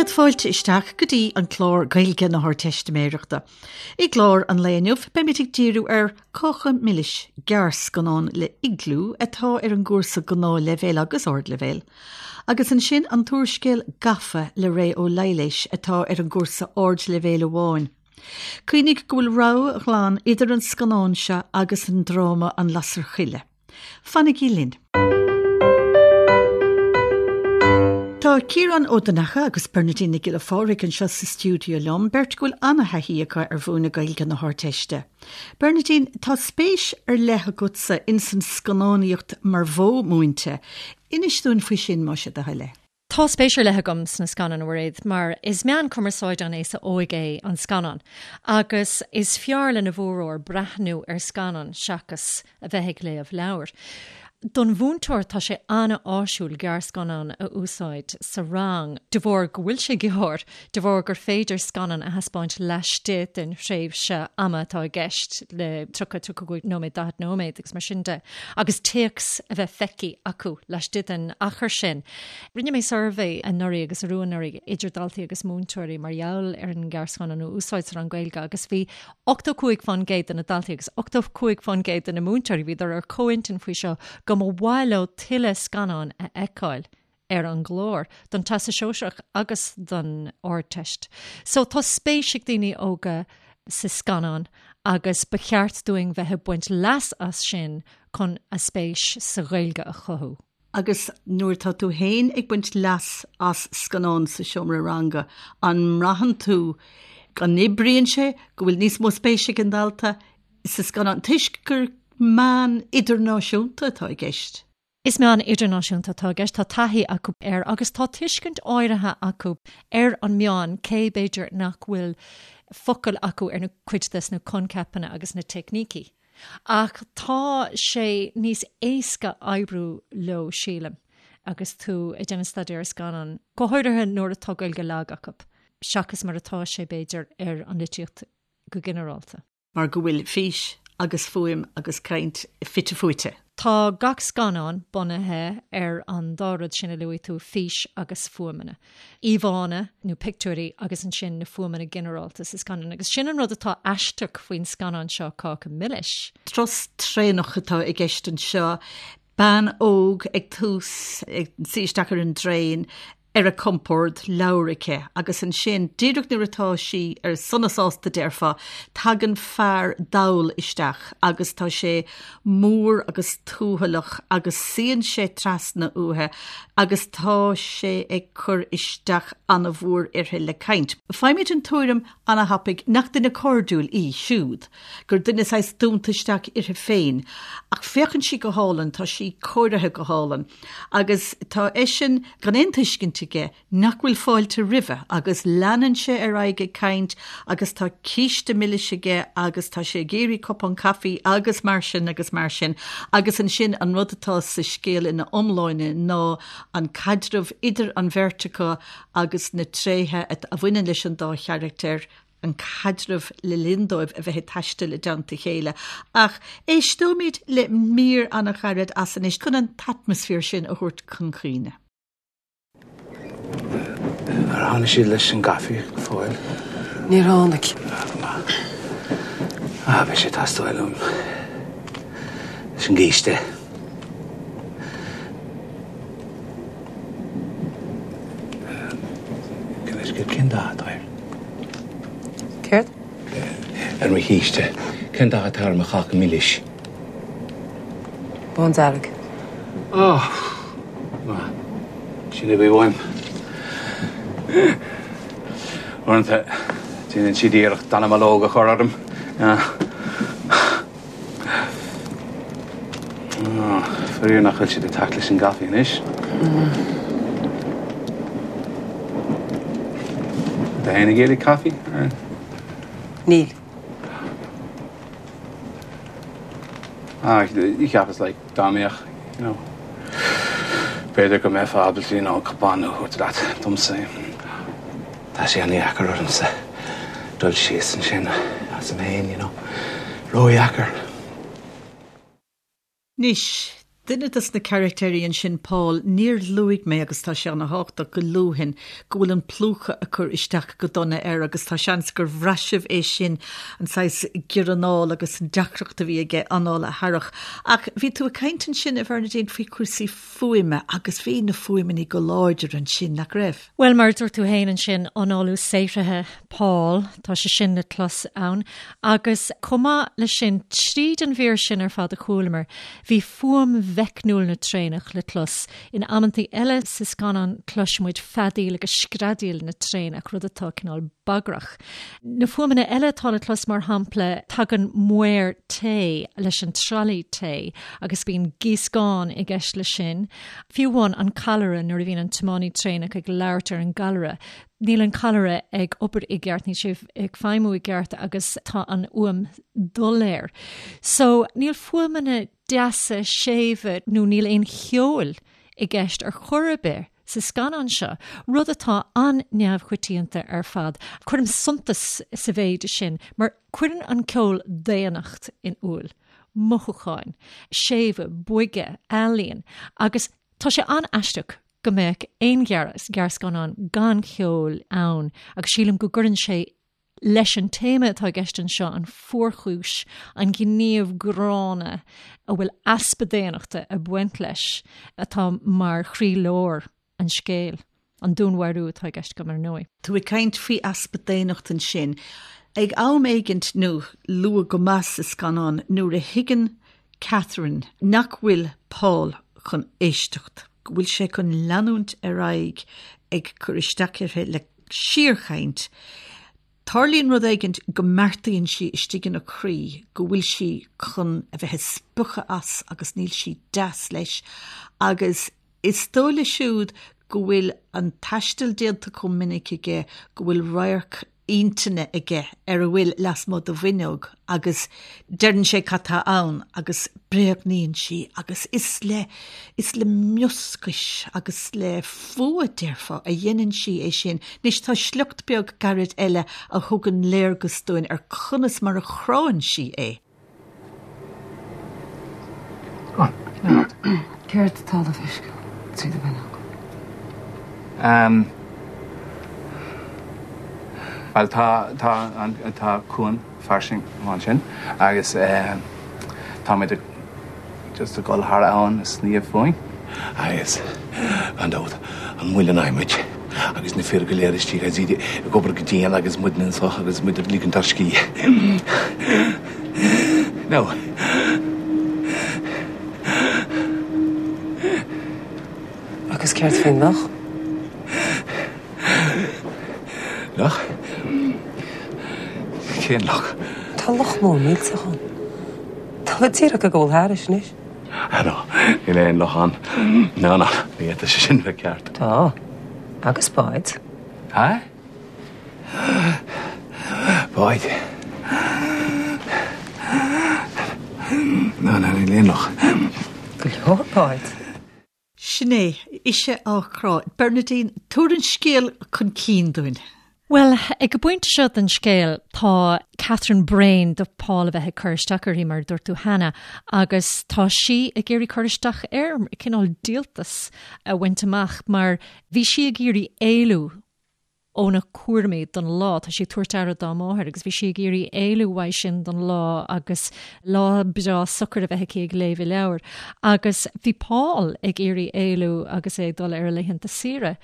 Céad fáilte isteach go dtí an clár Gaeilge na hArdteistiméireachta. I gclár an lae inniu beimid ag díriú ar Cáca Milis, gearrscannán le Iglú atá ar an gcúrsa Gnáthleibhéil agus Ardleibhéil, agus ansin an t-úrscéal Gafa le Ré Ó Laighléis atá ar an gcúrsa Ardleibhéil amháin. Cuimhnigh go bhfuil rogha ghlan idir an scannán seo agus an dráma An Lasair Choille. Fanaigí linn! Tá Ciarán Ó Donnacha agus Bernadine Nic Giolla Phádraig anseo sa stiúideo liom, beirt go bhfuil an-thaithí acu ar mhúineadh Gaeilge na hArdteiste. Bernadine, tá spéis ar leith agatsa ins an scannánaíocht mar mhodh múinte. Inis dúinn faoi sin, más é do thoil é. Tá spéis ar leith agam sna scannáin, a Mhairéad, mar is meán cumarsáide an aosa óig é an scannán agus is fearr lena bhformhór breathnú ar scannán seachas a bheith ag léamh leabhair. Don mhúinteoir tá sé an-áisiúil gearrscannán a úsáid sa rang de bharr go bhfuil sé gearr, de bharr gur féidir scannán a thaispeáint laistigh den thréimhse ama atá i gceist le 30, 35 nóiméad, 40 nóiméad agus mar sin de, agus téacs a bheith feicthe acu laistigh den achar sin. Rinne mé suirbhé anuraidh agus arú anuraidh idir daltaí agus múinteoirí mar gheall ar an ngearrscannán a úsáid sa rang Gaeilge agus bhí 85% de na daltaí agus 85% de na múinteoirí, bhíodar ar comhintinn faoi seo, go mba mhaith leo tuilleadh scannán a fheiceáil ar an gclár don Teastas Sóisearach agus don Ardteist. So tá spéis ag daoine óga sa scannán agus ba cheart dúinn bheith ag baint leas as sin chun a spéis sa Ghaeilge a chothú. Agus nuair atá tú féin ag baint leas as scannán sa seomra ranga, an mbraitheann tú go n-oibríonn sé, go bhfuil níos mó spéise ag an dalta sa scannán, toisc gur meán idirnáisiúnta atá i gceist? Is meán idirnáisiúnta atá i gceist, tá taithí acu air agus tá tuiscint áirithe acu ar an meán, cé b'fhéidir nach bhfuil focail acu ar na cuid des na coincheapanna agus na teicnící. Ach tá sé níos éasca oibriú leo, sílim, agus tú ag déanamh staidéar ar scannán, go háirithe nuair atá Gaeilge lag acu, seachas mar atá sé, b'fhéidir, ar an litríocht go ginearálta. Mar go bhfuil fís agus fuaim agus caint fite fuaite. Tá gach scannán bunaithe ar an dá rud sin a luaigh tú, fís agus fuaimeanna. Íomhánna nó pictiúirí agus ansin na fuaimeanna ginearálta sa scannán. Agus sin an rud atá aisteach faoin scannán seo, Cáca Milis. Turas traenach atá i gceist anseo, bean óg ag tús, ag suí isteach ar an dtraein, ar a compord, leabhar aici, agus ansin, díreach nuair atá sí ar sona sásta déarfá, tagann fear dall isteach agus tá sé mór agus tuathalach agus suíonn sé trasna uaithi agus tá sé ag cur isteach an-mhór uirthi le caint. Faighimid an tuairim ana-thapaidh nach duine cairdiúil í siúd, gur duine saghas dúnta isteach uirthi féin. Ach féachann sí go hálainn, tá sí cóirithe go hálainn. Agus tá eisean gan aon tuiscint aige nach bhfuil fáilte roimhe agus leanann sé ar aghaidh ag caint agus tá císte milis aige agus tá sé ag iarraidh cupán caife agus mar sin agus mar sin agus ansin an rud atá sa scéal ina iomláine ná an caidreamh idir an bheirt acu agus na tréithe a bhaineann leis an dá charachtar an caidreamh le linn dóibh a bheith ag taisteal i dteannta a chéile. Ach éisteoimid le mír an-ghairid as anois chun an t-atmaisféar sin a thabhairt chun cuimhne. Ar tháinig siad leis an gcaife go fóill? Níor tháinig. Ah, beidh sé ag teastáil uaim leis an gcíste. Cén dath atá air? Céard? Ar mo chíste. Cén dath atá ar mo cháca milis? Bándearg. Ó, maith. Sin a bhí uaim. Uaireanta, déanann siad iarracht dallamullóg a chur orm. Faraor nach bhfuil siad ag teacht leis an gcaife anois. Tá éinne ag iarraidh caife? Níl. Ah, cheapas like dá mbeadh, you know, b'fhéidir go mbeifeá ábalta, you know, cupán a thabhairt leat domsa. Tá sé an-dheacair ormsa dul síos ansin asam féin, you know. Ródheacair. Anois, Duine dos na carachtéirí ansin, Paul, níor luaigh mé, agus tá sé ana-thábhachtach go luafainn, go bhfuil an plúchadh ag cur isteach go dona air agus tá seans gur bhraith sibh é sin, an saghas giorranáil agus an deacracht a bhí aige anáil a tharrach. Ach bhí tú ag caint ansin, a Bhernadine, faoi chúrsaí fuaime agus bhí na fuaimeanna go láidir ansin, nach raibh? Bhuel, mar a dúirt tú féin ansin, análú saothraithe Paul, tá sé sin le clos ann. Agus chomh maith leis sin, tríd an mhír sin ar fad a chualamar, bhí fuaim mheicniúil na traenach le clos. In amantaí eile sa scannán cloisimid feadaíl agus screadaíl na traenach, rud atá cineál bagrach. Na fuaimeanna eile atá le clos, mar shampla, tagann maor tae leis an tralaí tae agus bíonn gíoscán i gceist leis sin. Fiú amháin an callaire, nuair a bhíonn an tiománaí traenach ag labhairt ar an gcallaire, níl an callaire ag obair i gceart, níl sé ag feidhmiú i gceart agus tá an fhuaim doiléir. So, níl fuaimeanna deasa, séimhe nó níl aon cheol i gceist ar chor ar bith sa scannán seo, rud atá an-neamhchoitianta ar fad. Cuirim suntas sa mhéid sin mar cuireann an ceol daonnacht in iúl. mothúcháin, séimhe, boige, ealaín agus tá sé an-aisteach go mbeadh aon ghearrscannán gan cheol ann agus sílim go gcuireann sé leis an téama atá i gceist anseo, an fuarchúis, an gníomh gránna a bhfuil easpa daonnachta ag baint leis atá mar chroílár an scéil, an dúnmharú atá i gceist agam ar ndóigh. Tú ag caint faoi easpa daonnacht ansin. Ag am éigint, nó luath go maith sa scannán, nuair a thuigeann Catherine nach bhfuil Paul chun éisteacht, go bhfuil sé chun leanúint ar aghaidh ag cur isteach uirthi le síorchaint, tarlaíonn rud éigint go mbeartaíonn sí istigh ina croí go bhfuil sí chun a bheith ag spochadh as agus níl sí deas leis agus Is dóigh leis siúd go bhfuil an taisteal déanta chomh minic aige go bhfuil radharc intinne aige ar a bhfuil lasmuigh de bhfuinneog agus deireann sé cad tá ann agus bréagnaíonn sí agus is le is le mioscais agus le fuath, déarfá, a dhéanann sí é sin. Anois tá sliocht beag gairid eile a thugann léargas dúinn ar conas mar a chránn sí é. Céard atá le feiscint tríd an bhfuinneog? Bhuel, tá, tá an, tá cuan fairsing ansin agus táimid ag just ag dul thar abhainn ag sníomh fúinn. Agus, gan dabht, an muileann adhmaid agus na fir go léir istigh agus iad ag obair go dian agus muidne anseo agus muid ag ligint ár scíth. Now. Agus céard faoin loch? Loch? Cén loch? Tá loch mór millteach ann. Tá muid díreach ag gabháil thairis anois. Ah no, níl aon loch ann. No, no, ní fhéadfadh sé sin bheith ceart. Tá. Agus báid. Ha? Báid. No, no, níl aon loch. Go leor báid. Sin é, ise á crá. Bernadine, tabhair an scéal chun cinn dúinn. Bhuel, ag an bpointe seo den scéal, tá Catherine bréan de Paul a bheith ag cur isteach uirthi, mar a dúirt tú cheana, agus tá sí ag iarraidh cur isteach air, cineál díoltas a bhaint amach, mar bhí sí ag iarraidh éalú óna cúraimí don lá. Tá sí ag tabhairt aire dá máthair agus bhí sí ag iarraidh éalú uaidh sin don lá agus lá breá socair a bheith aici ag léamh a leabhair. Agus bhí Paul ag iarraidh éalú agus é ag dul ar a laethanta saoire.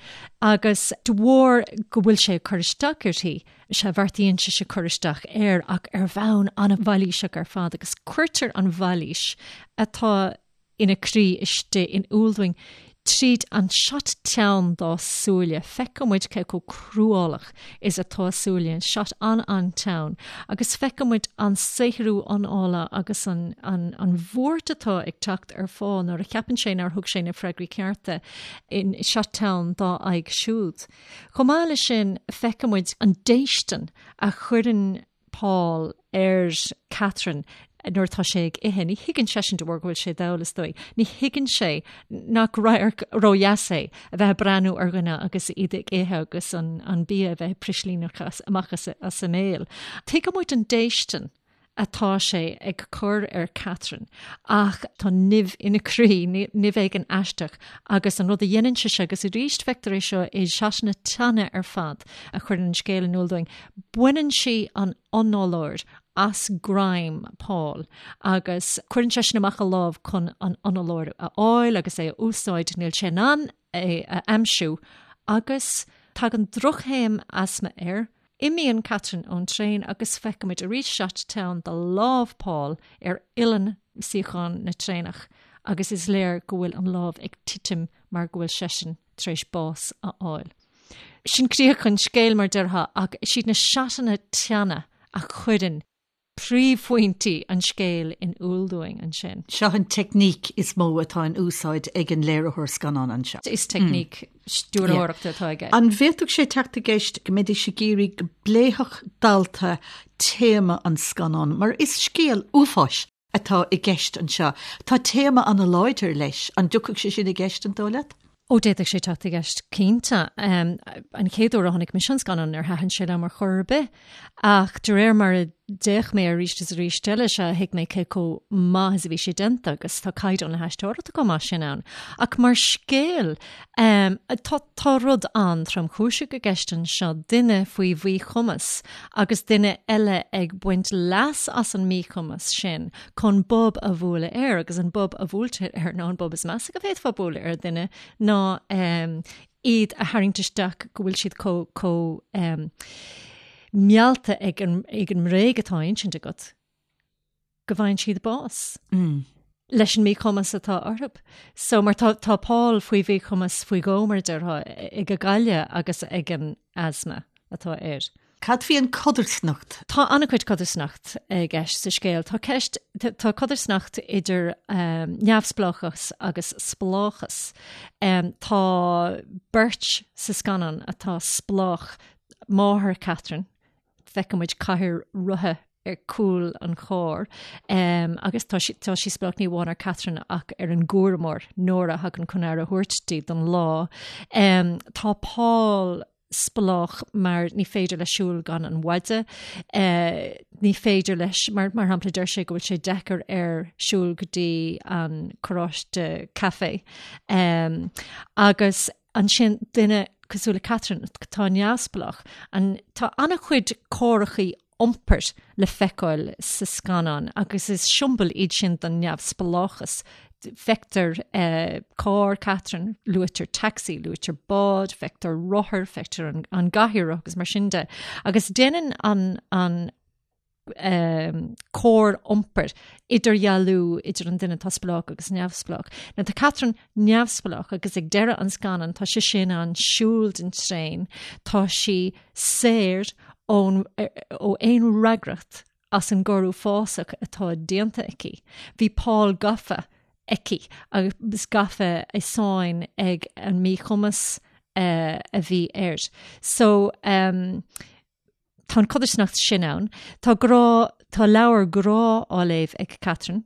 Agus de bharr go bhfuil sé ag cur isteach uirthi, sea, bheartaíonn sise cur isteach air ach ar bhonn an-mhailíseach ar fad agus cuirtear an mhailís atá ina croí istigh in iúl dúinn tríd an shot teann dá súile. Feiceann muid cé chomh cruálach is atá a súile, an shot an-an-teann, agus feiceann muid an saothrú anála agus an an an bhuairt atá ag teacht ar Phaul nuair a cheapann sé nár thug sé na freagraí cearta in shot teann dá aghaidh siúd. Chomh maith leis sin, feiceann muid an déistin a chuireann Paul ar Catherine nuair atá sé ag ithe. Ní thuigeann seisean de bharr go bhfuil sé dall, is dóigh. Ní thuigeann sé nach radharc ródheas é a bheith ag breathnú ar dhuine agus iad ag ithe agus an, an bia a bheith ag prislíneach amach as, as a mbéal. Tuigeann muid an déistin. atá sé ag cur ar Catherine ach tá nimh ina croí, nimh éigin aisteach agus an rud a dhéanann sise, agus arís feictear é seo i seatanna teanna ar fad a chuireann an scéal in iúl dúinn, baineann sí an análóir as greim Paul agus cuireann seisean amach a lámh chun an análóir a fháil agus é a úsáid, níl sé in ann é a aimsiú agus tagann drochthaom asma air. Imíonn Catherine ón traein agus feicimid arís seat teann de lámh Paul ar uillinn suíochán na traenach agus is léir go bhfuil an lámh ag titim mar go bhfuil seisean tar éis bás a fháil. Sin críoch an scéil mar déarfá ach is iad na seatanna teanna a chuireann príomhphointí an scéil in iúl dúinn ansin. Seo an teicníc is mó atá in úsáid ag an léiritheoir scannán anseo. Is teicníc stiúrthóireachta atá aige. An bhféadfadh sé teacht i gceist go mbeidís ag iarraidh go bpléifeadh dalta téama an scannáin, mar is scéal uafáis atá i gceist anseo. Tá téama an-láidir leis. An dtiocfadh sé sin i gceist, an dóigh leat? Ó, d'fhéadfadh sé teacht i gceist, cinnte. An chéad uair a chonaic mise an scannán, níor thaitin sé liom ar chor ar bith. Ach de réir mar a d'fhéach mé arís is arís eile, sea, thuig mé cé chomh maith is a bhí sé déanta agus tá caighdeán na haisteoireachta chomh maith sin ann. Ach mar scéal, tá, tá rud an-tromchúiseach i gceist anseo, duine faoi mhíchumas agus duine eile ag baint leas as an míchumas sin chun bob a bhualadh air agus an bob a bhuailtear air ná an bob is measa go bhféadfá bualadh ar dhuine ná iad a tharraingt isteach go bhfuil siad chomh chomh meallta ag an ag an mbréag atá á insint agat go bhfaigheann siad bás. leis an míchumas atá orthu. So mar tá tá Paul faoi mhíchumas faoi dhó mar a déarfá ag an gcailleadh agus ag an asma atá air. Cad faoi an codarsnacht? Tá an-chuid codarsnacht i gceist sa scéal. Tá ceist, tá codarsnacht idir neamhspleáchas agus spleáchas. Tá beirt sa scannán atá spleách, máthair Catherine, feiceann muid cathaoir rotha ar cúl an chairr agus tá sí, tá sí spleách ní amháin ar Catherine ach ar an gcúramóir, Nora, a thagann chun aire a thabhairt di don lá. Tá Paul spleách mar ní féidir leis siúl gan an mhaide. Ní féidir leis, mar mar shampla deir sé go bhfuil sé deacair air siúl go dtí an carráiste caife. Agus ansin duine cosúil le Catherine atá neamhspleách, an tá an-chuid córachaí iompair le feiceáil sa scannán agus is siombail iad sin don neamhspleáchas. Feictear carr Catherine, luaitear taxi, luaitear bád, feictear rothar, feictear an, an gcathaoir agus mar sin de. Agus déanann an, an cóir iompair idirdhealú idir an duine atá spleách agus neamhspleách. Now tá Catherine neamhspleách agus ag deireadh an scannáin tá sise in ann siúl den traein, tá sí saor ón ó aon fhreagracht as an gcoir uafásach atá déanta aici. Bhí Paul gafa aici agus gafa i sáinn ag an míchumas uh, a bhí air. So um, tá an codarsnacht sin ann. Tá grá, tá leabhar grá á léamh ag Catherine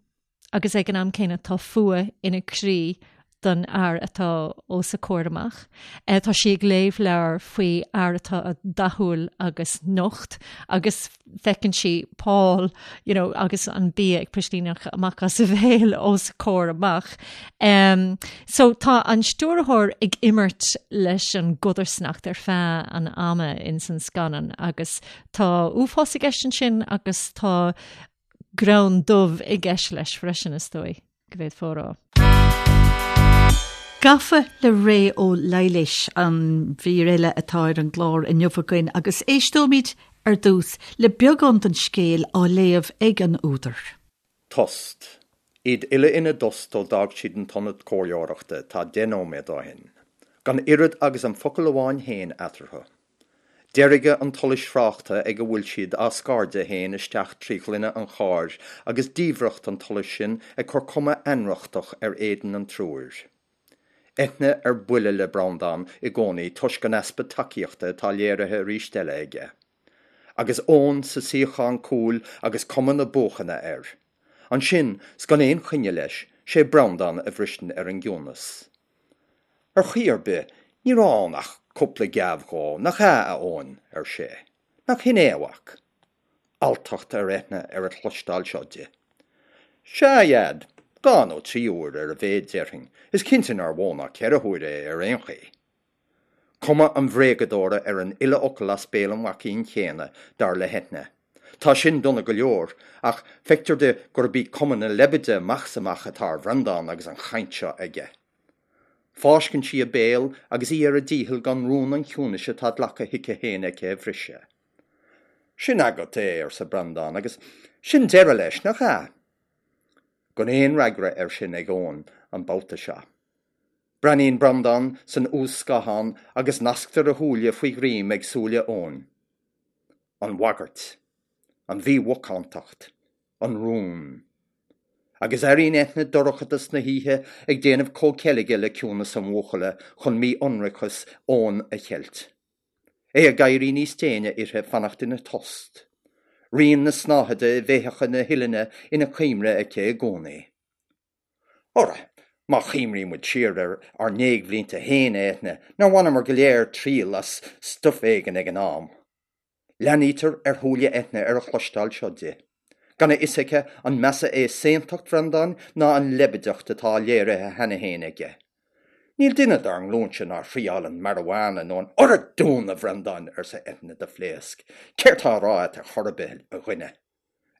agus ag an am céanna tá fuath ina croí don fhear atá os a comhair amach. Tá sí ag léamh leabhar faoi fhear atá dathúil agus nocht agus feiceann sí Paul you know, agus an bia ag pislíneach amach as a bhéal os a comhair amach. Um, so tá an stiúrthóir ag imirt leis an gcodarsnacht ar feadh an ama in san scannán agus tá uafás i gceist ansin agus tá greann dubh i gceist leis freisin is dóigh go bhféadfá a rá. Gafa le Ré Ó Laighléis an mhír eile atá ar an gclár inniu againn agus éisteoimid ar dtús le beagán den scéal á léamh ag an údar. Tost. Iad uile ina dtost ó d'fhág siad an t-ionad comhairleoireachta tá 10 nóiméad ó shin. Gan oiread agus an focal amháin féin eatarthu. Deirge an tsolais thráchta ag a bhfuil siad á scairdeadh féin isteach trí ghloine an chairr agus diamhracht an tsolais sin ag cur cuma ainriochtach ar éadan an triúir. Eithne ar buile le Breandán i gcónaí toisc an easpa tacaíochta atá léirithe arís eile aige. Agus Eoin sa suíochán cúil agus cuma na buachana air. Ansin, 's gan aon choinne leis, 'sé Breandán a bhriseann ar an gciúnas. Ar chaoi ar bith, ní raibh ann ach cúpla geábh dhó, nach ea, a Eoin? ar sé. Nach shin é, a mhac? Alltacht ar Eithne ar a chloisteáil seo di. Sea, a Dhaid, 2 nó 3 huair ar a mhéad déarfainn, is cinnte nár mhó ná 4 huaire é ar aon chaoi. Cuma an bhréagadóra ar an uile fhocal as béal an mhaicín chéanna, dar le hEithne. Tá sin dona go leor, ach feictear di gurb í cuma na leibide amach is amach atá ar Bhreandán agus an chaint seo aige. Fáisceann sí a béal agus í ar a dícheall gan rún an chiúnais atá glactha chuici féin aici a bhriseadh. Sin agat é, arsa Breandán, agus sin deireadh leis, nach ea? Gan aon fhreagra air sin ag Eoin an babhta seo. Breathnaíonn Breandán san uas-scáthán agus nasctar a shúile faoi ghreim ag súile Eoin. An bhagairt. An mhímhacántacht. An rún. Agus airíonn Eithne dorchadas na hoíche ag déanamh comhcheilge le ciúnas an bhuachalla chun mí-ionracas Eoin a cheilt. É ag éirí níos déine uirthi fanacht ina tost. Rian na snáthaide i bhféitheacha na huillinne ina cuimhne aici i gcónaí. Ara, má chuimhníonn muid siar ar ár ndéagbhlianta féin, a Eithne, nár bhaineamar go léir triail as stuif éigin ag an am? Leathnaítear ar shúile Eithne ar a chloisteáil seo di. Gan a fhios aici an measa é saontacht Bhreandáin ná an leibideacht atá léirithe cheana féin aige. Níl duine dár nglúinse nár thriáil an marijuana nó an Ara dún, a Bhreandáin! arsa Eithne de phléasc. Céard tá á rá a't ar chor ar bith, a dhuine?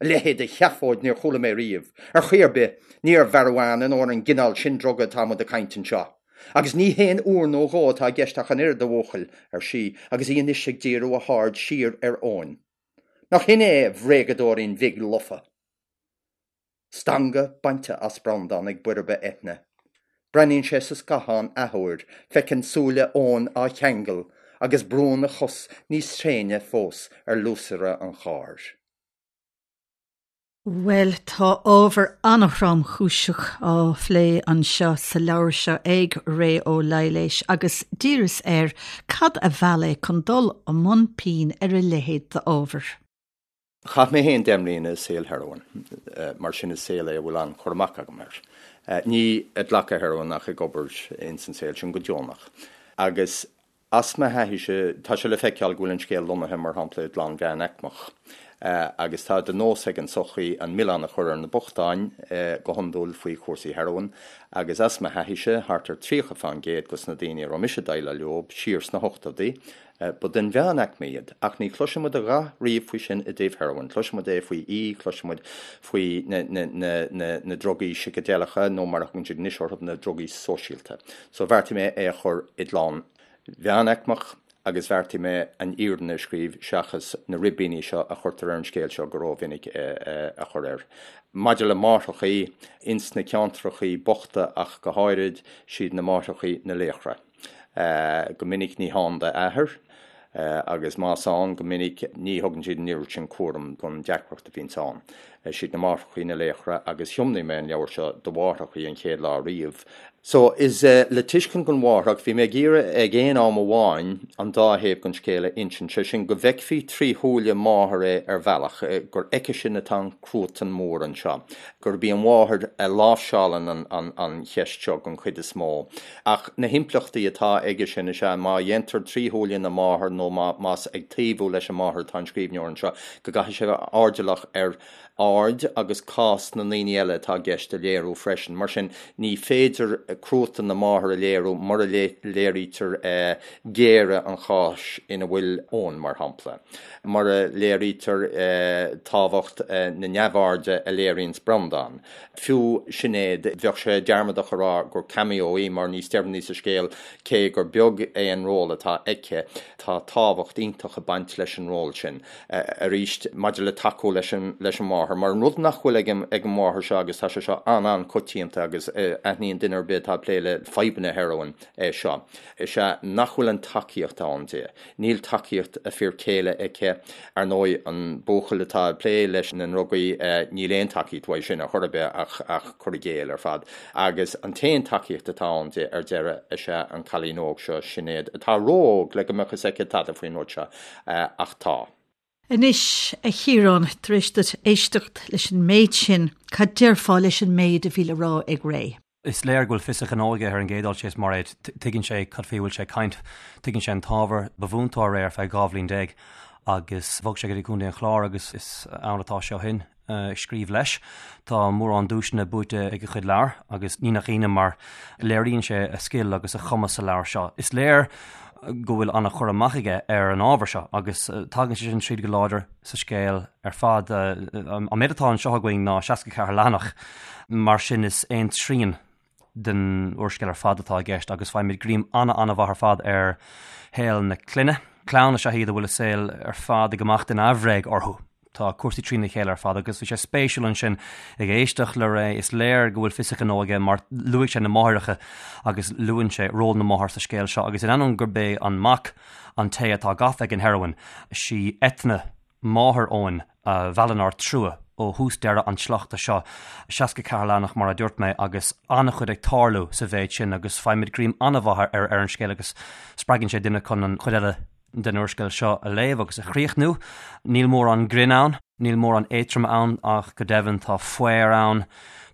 A leithéid de sheafóid níor chuala mé riamh. Ar chaoi ar bith, ní ar mharijuana nó ar an gcineál sin druga atá muid ag caint anseo. Agus ní haon uair nó dhó atá i gceist ach an oiread, a bhuachaill, ar sí, agus í anois ag díriú a haird siar ar Eoin. Nach shin é, a bhréagadóirín bhig lofa? Stangadh bainte as Breandán ag boirbe Eithne. Breathnaíonn sé sa scáthán athuair, feiceann súile Eoin á cheangal, agus brúnn a chos níos tréine fós ar luasaire an chairr. Bhuel, tá ábhar an-thromchúiseach á phlé anseo sa leabhar seo ag Ré Ó Laighléis agus d'iarras air cad a mheall é chun dul i mbun pinn ar a leithéid d'ábhar. Chaith mé féin 10 mbliana i saol heroin, mar sin is saol é a bhfuil an-chur amach agam air. Ní ag glacadh heroin ach ag obair ins an saol sin go deonach. Agus as mo thaithíse, tá sé le feiceáil go bhfuil an scéal lonnaithe, mar shampla, i gclann mheánaicmeach. Agus tá de nós ag an tsochaí an milleán a chur ar na bochtáin, go hiondúil faoi chúrsaí heroin. Agus as mo thaithíse, thart ar 30 fán gcéad dos na daoine a raibh mise ag déileáil leo siar sna hochtóidí, Ba den mheánaicme iad, ach ní chloiseann muid a dhath riamh faoi sin i dtaobh heroin. Cloiseann muid é faoi E, cloiseann muid faoi na drugaí sicideileacha, nó mar a thugann siad anois orthu, na drugaí sóisialta. So bheartaigh mé é a chur i gclann mheánaicmeach agus bheartaigh mé an fhírinne a scríobh seachas na ribíní seo a chuirtear ar an scéal seo go rómhinic a chur air. Maidir le máithreachaí, ins na ceantrachaí bochta ach go háirid, siad na máithreachaí na laochra. Go minic ní hann d'athair agus más ann, go minic ní thugann siad an oiread sin cúram don deacracht a bhíonns ann. Siad na máithreachaí na laochra agus thiomnaigh mé an leabhar seo do mháithreachaí an chéad lá riamh. So, is le tuiscint don mháithreach, bhí mé ag iarraidh ag aon am amháin an dá thaobh den scéal a insint, sé sin go bhfeicfí trí shúile máthar é ar bhealach, gur aici sin atá an cruatan mór anseo, gurb í an mháthair a láimhseálann an cheist seo den chuid is mó. Ach na himpleachtaí atá aige sin is ea má dhéantar trí shúile na máthar nó más ag taobhú leis an máthair atá an scríbhneoir anseo, go gcaithfidh sé bheith airdeallach ar aird agus cás na ndaoine eile atá i gceist a léiriú freisin. Mar sin, ní féidir cruatan na máthar a léiriú mura léirítear géire an cháis ina bhfuil Eoin, mar shampla. Mura léirítear tábhacht na neamhairde a léiríonns Breandán. Fiú Sinéad, bheadh sé dearmadach a rá gur cameo í mar níos deireanaí sa scéal, cé gur beag é an ról atá aici, tá tábhacht iontach ag baint leis an ról sin. Arís, maidir le tacú leis an leis an mháthair, mar an rud nach bhfuil ag an ag an mháthair seo agus tá sé seo an-an-coitianta agus aithníonn duine ar bith atá ag plé le fadhbanna heroin é seo, is ea nach bhfuil an tacaíocht ann di. Níl tacaíocht a fir céile aici. Ar ndóigh, an buachaill atá ag plé leis na ndrugaí, níl aon tacaíocht uaidh sin ar chor ar bith ach ach cur i gcéill ar fad. Agus an t-aon tacaíocht atá ann di ar deireadh is ea an cailín óg seo, Sinéad, atá ró-óg le go mbeadh fhios aici tada faoin rud seo, ach tá. Anois, a Chiaráin, tar éis duit éisteacht leis an méid sin, cad déarfá leis an méid a bhí le rá ag Ré? Is léir go bhfuil fios a ghnó aige ar an gcéad dul síos, Mairéad. Tuigeann sé cad faoi a bhfuil sé ag caint. Tuigeann sé an t-ábhar. Ba mhúinteoir é ar feadh 12 bhliain. Agus bhog sé go dtí Contae an Chláir agus is ann atá sé ó shin ag scríobh leis. Tá mórán duaiseanna buaite ag a chuid leabhar agus ní nach ionadh mar léiríonn sé a scil agus a chumas sa leabhar seo. Is léir go bhfuil an-chur amach aige ar an ábhar seo agus tagann sé sin tríd go láidir sa scéal ar fad. An méid atá anseo againn ná 64 leathanach, mar sin is aon trian den úrscéal ar fad atá i gceist agus faighimid greim an-an-mhaith ar fad ar shaol na clainne. Clann is ea iad a bhfuil a saol ar fad ag imeacht in aimhréidh orthu. Tá cúrsaí trína chéile ar fad agus bhí sé spéisiúil ansin ag éisteacht le Ray. Is léir go bhfuil fios a ghnó aige mar luaigh sé na máithreacha agus luann sé ról na máthar sa scéal seo agus in ainneoin gurb é an mac an té atá gafa ag an heroin, sí Eithne máthair Eoin a mheallann ár dtrua ó thús deireadh an tsleachta seo, 64 leathanach mar a dúirt mé agus an-chuid ag tarlú sa mhéid sin agus faighimid greim an-mhaith ar an scéal agus spreagann sé duine chun an chuid eile den úrscéal seo a léamh agus a chríochnú. Níl mórán grinn ann, níl mórán éatroime ann ach go deimhin tá faobhar ann,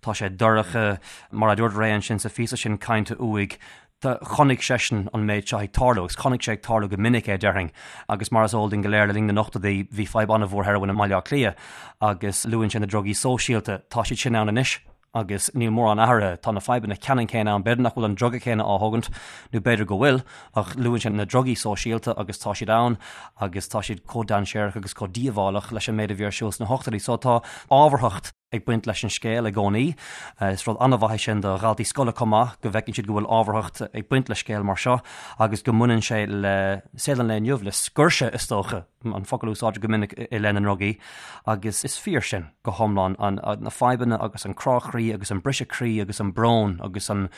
tá sé dorcha, mar a dúirt Ray ansin sa phíosa sin cainte uaidh, Chonaic seisean an méid seo ag tarlú, agus chonaic sé ag tarlú go minic é, déarfainn. Agus mar is eol dúinn go léir, le linn na n-ochtóidí, bhí fadhb an-mhór heroin i mBaile Átha Cliath, agus luann sé na drugaí sóisialta. Tá siad sin ann anois, agus níl mórán athraithe. Tá na fadhbanna ceannann céanna ann. B'fhéidir nach bhfuil an druga céanna á thógaint, nó b'fhéidir go bhfuil, ach luann sé na drugaí sóisialta agus tá siad ann, agus tá siad chomh dainséarach agus chomh díobhálach leis an méid a bhí ar siúl sna hochtóidí. So tá ábharthacht. ag baint leis an scéal i gcónaí. Is rud an-mhaith é sin do dhaltaí scoile chomh maith, go bhfeiceann siad go bhfuil ábharthacht ag baint le scéal mar seo agus go mbaineann sé le saol an lae inniu, le scoirse is dócha, an focal a úsáidtear go minic i leith na ndrugaí. Agus is fíor sin go hiomlán, na fadhbanna agus an crá croí agus an briseadh croí agus an brón agus an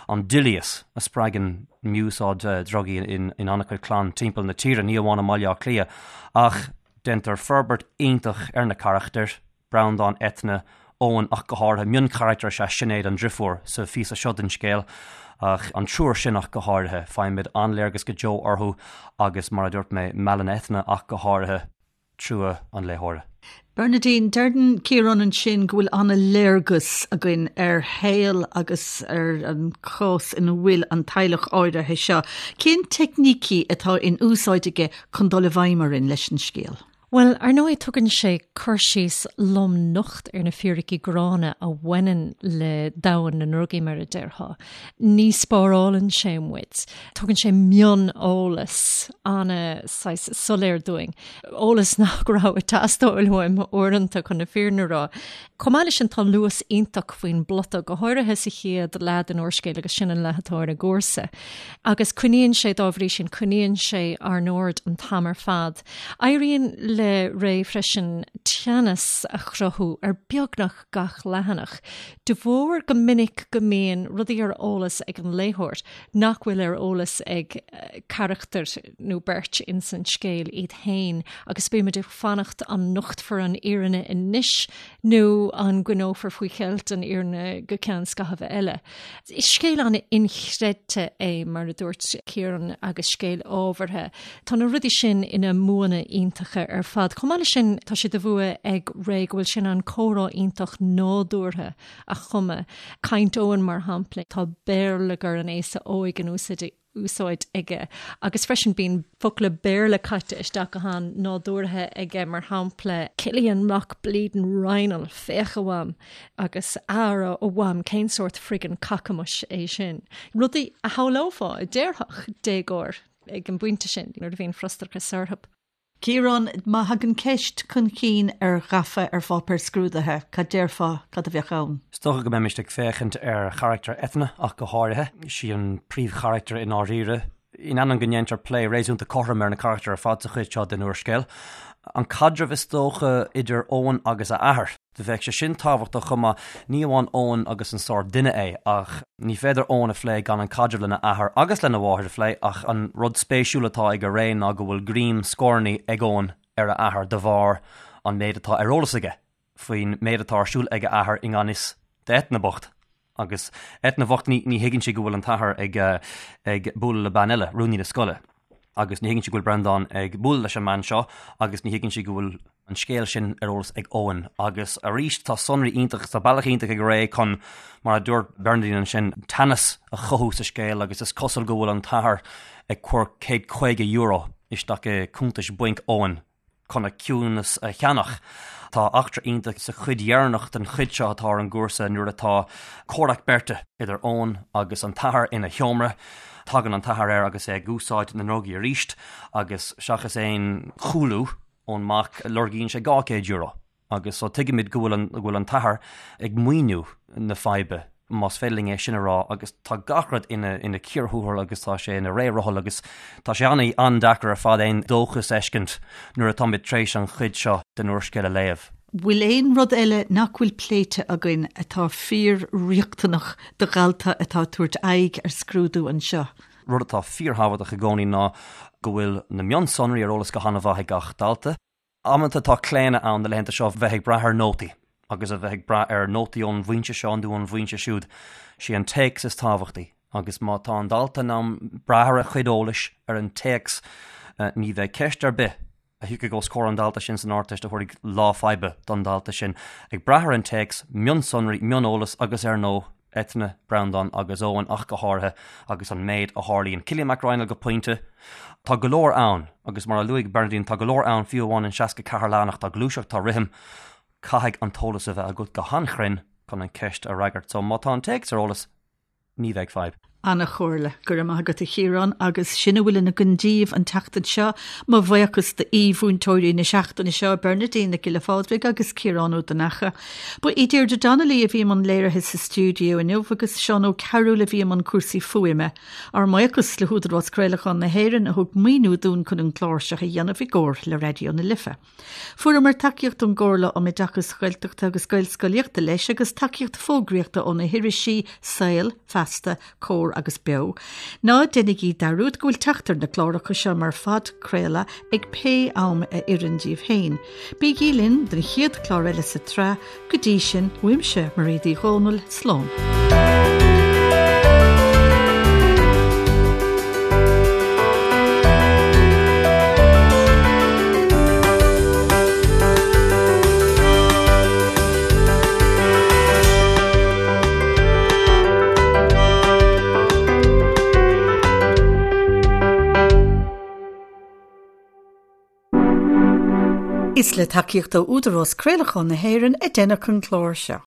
doilíos a spreagann mí-úsáid drugaí in an-chuid clann timpeall na tíre, ní amháin i mBaile Átha Cliath. Ach déantar forbairt iontach ar na carachtair. Breandán, Eithne, Eoin ach go háirithe. Mioncharachtar is ea Sinéad, an driofúr, sa phíosa seo den scéal, ach an triúr sin ach go háirithe. Faighimid an-léargas go deo orthu agus, mar a dúirt mé, meallann Eithne ach go háirithe trua an léitheora. Bernadine, deireann Ciarán ansin go bhfuil an-léargas againn ar shaol agus ar an chás ina bhfuil an teaghlach áirithe seo. Cén teicnící atá in úsáid aige chun dul i bhfeidhm orainn leis an scéal? Bhuel, ar ndóigh, tugann sé cur síos lom nocht ar na fíricí gránna a bhaineann le domhan na ndrugaí, mar a déarfá. Ní spárálann sé muid. Tugann sé mion-eolas ana saghas soiléir dúinn. Eolas nach raibh ag teastáil uaim uaireanta, chun na fírinne a rá. Chomh maith leis sin, tá luas iontach faoin bplota, go háirithe sa chéad leath den úrscéal agus sin an leath atá ar an gcúrsa. Agus coinníonn sé, dá bhrí sin, coinníonn sé ár n-aird an t-am ar fad. Éiríonn le Ray freisin teannas a chruthú ar beagnach gach leathanach, de bharr go minic go mbíonn rudaí ar eolas ag an léitheoir nach bhfuil ar eolas ag carachtar nó beirt ins an scéal iad féin agus bímid ag fanacht an nochtfar an fhírinne anois nó an gcoinneofar faoi cheilt an fhírinne go ceann scaithimh eile. Is scéal an-inchreidte é, mar a dúirt Ciarán, agus scéal ábhartha. Tá na rudaí sin ina mbuanna iontacha ar fad. Chomh maith leis sin, tá sé de bhua ag Ray go bhfuil sé in ann comhrá iontach nádúrtha a chumadh. Caint Eoin, mar shampla, tá béarlagair an aosa óig in úsáid úsáid aige agus freisin bíonn focla Béarla caite isteach go han-nádúrtha aige, mar shampla, Cillian Mac Bleedin Raghnaill, féach a Mham, agus Ara a Mham, cén sórt friggin cacamais é sin? Rudaí a shamhlófá a déarfadh déagóir ag an bpointe sin nuair a bhíonn frustrachas orthu. Ciarán, má thagann ceist chun cinn ar Ghafa ar pháipéar scrúdaithe, cad déarfá, cad a bheadh ann? Is dócha go mbeimis ag féachaint ar charachtar Eithne ach go háirithe. Sí an príomhcharachtar i ndáiríre. In ainneoin go ndéantar plé réasúnta cothrom ar na carachtair ar fad sa chuid seo den úrscéal, an caidreamh is dócha idir Eoin agus a athair. Do bheadh sé sin tábhachtach chomh maith, ní amháin Eoin agus an sórt duine é, ach ní féidir Eoin a phlé gan an caidreamh lena athair agus lena mháthair a phlé, ach an rud spéisiúil atá ag Ray ná go bhfuil greim scornaí ag Eoin ar a athair de bharr an méid atá ar eolas aige faoin méid atá ar siúl ag a athair i ngan fhios d'Eithne bocht. Agus Eithne bhocht, ní thuigeann sí go bhfuil an t-athair ag ag bualadh le bean eile, rúnaí na scoile. Agus ní thuigeann sí go bhfuil Breandán ag bualadh leis an mbean seo agus ní thuigeann sí go bhfuil an scéal sin ar eolas ag Eoin. Agus arís tá sonraí iontach, tá bealach iontach ag Ray chun, mar a dúirt Bernadine ansin, teannas a chothú sa scéal agus is cosúil go bhfuil an t-athair ag cur €150 isteach i cuntais bainc Eoin. chun a ciúnas a cheannach. Tá eachtra iontach sa chuid dheireanach den chuid seo atá ar an gcúrsa nuair atá comhrac beirte idir Eoin agus an t-athair ina sheomra. Tagann an t-athair air agus é ag úsáid na ndrugaí arís agus seachas aon chúlú ón mac lorgaíonn sé €200. Agus so tuigimid go bhfuil an, go bhfuil an t-athair ag maoiniú na faidhbe, más féidir linn é sin a rá, agus tá gach rud ina, ina cíor thuathail agus tá sé ina ré rothal agus tá sé an, an-deacair ar fad aon dóchas a fheiscint nuair atáimid tar éis an chuid seo den úrscéal a léamh. Bhfuil aon rud eile nach bhfuil pléite againn atá fíor-riachtanach do dhalta atá ag tabhairt aghaidh ar scrúdú anseo? Rud atá fíorthábhachtach i gcónaí ná go bhfuil na mionsonraí ar eolas go han-mhaith ag gach dalta. Amanta tá claonadh ann na laethanta seo bheith ag brath ar nótaí agus a bheith ag brath ar nótaí ón bhfoinse seo nó ón bhfoinse siúd. Sé an téacs is tábhachtaí agus má tá an dalta in ann brath ar a chuid eolais ar an téacs ní bheidh ceist ar bith a thiocfaidh os comhair an dalta sin san Ardteist a thabharfaidh lá faidhbe don dalta sin. Ag brath ar an téacs, mionsonraí, mioneolas agus ar ndóigh, Eithne, Breandán agus Eoin ach go háirithe, agus an méid a tharlaíonn. Cillian Mac Raghnaill go pointe. Tá go leor ann, agus mar a luaigh Bernadine, tá go leor ann fiú amháin in 64 leathanach, tá gluaiseacht, tá rithim. Caithfidh an t-eolas a bheith agat go han-chruinn chun an ceist a fhreagairt. So má tá an téacs ar eolas, ní bheidh fadhb. Ana-chomhairle. Go raibh maith agat a Chiaráin agus sin a bhfuil againn daoibh an tseachtain seo. Mo bhuíochas d'aoi-mhúinteoirí na seachtaine seo, Bernadine Nic Giolla Phádraig agus Ciarán Ó Donnacha. Ba í Deirdre Donnelly a bhí i mbun léirithe sa stiúideo inniu agus Seán Ó Cearúil a bhí i mbun cúrsaí fuaime. Ár mbuíochas le hÚdarás Craolacháin na hÉireann a thug maoiniú dúinn chun an clár seo a dhéanamh i gcomhar le Raidió na Life. Fuaireamar tacaíocht ón gComhairle um Oideachas Gaeltachta agus Gaelscolaíochta leis agus tacaíocht fógraíochta ó na hirisí Saol, Feasta, Comhar agus Beo. Ná déanaigí dearúd go bhfuil teacht ar na cláracha seo mar phodchraoladh ag pé am a oireann daoibh féin. Bígí linn don chéad chlár eile sa tsraith, Go dtí sin, uaimse, Mairéad Uí Dhomhnaill, slán. Is le tacaíocht ó Údarás Craolacháin na hÉireann a deineadh an clár seo.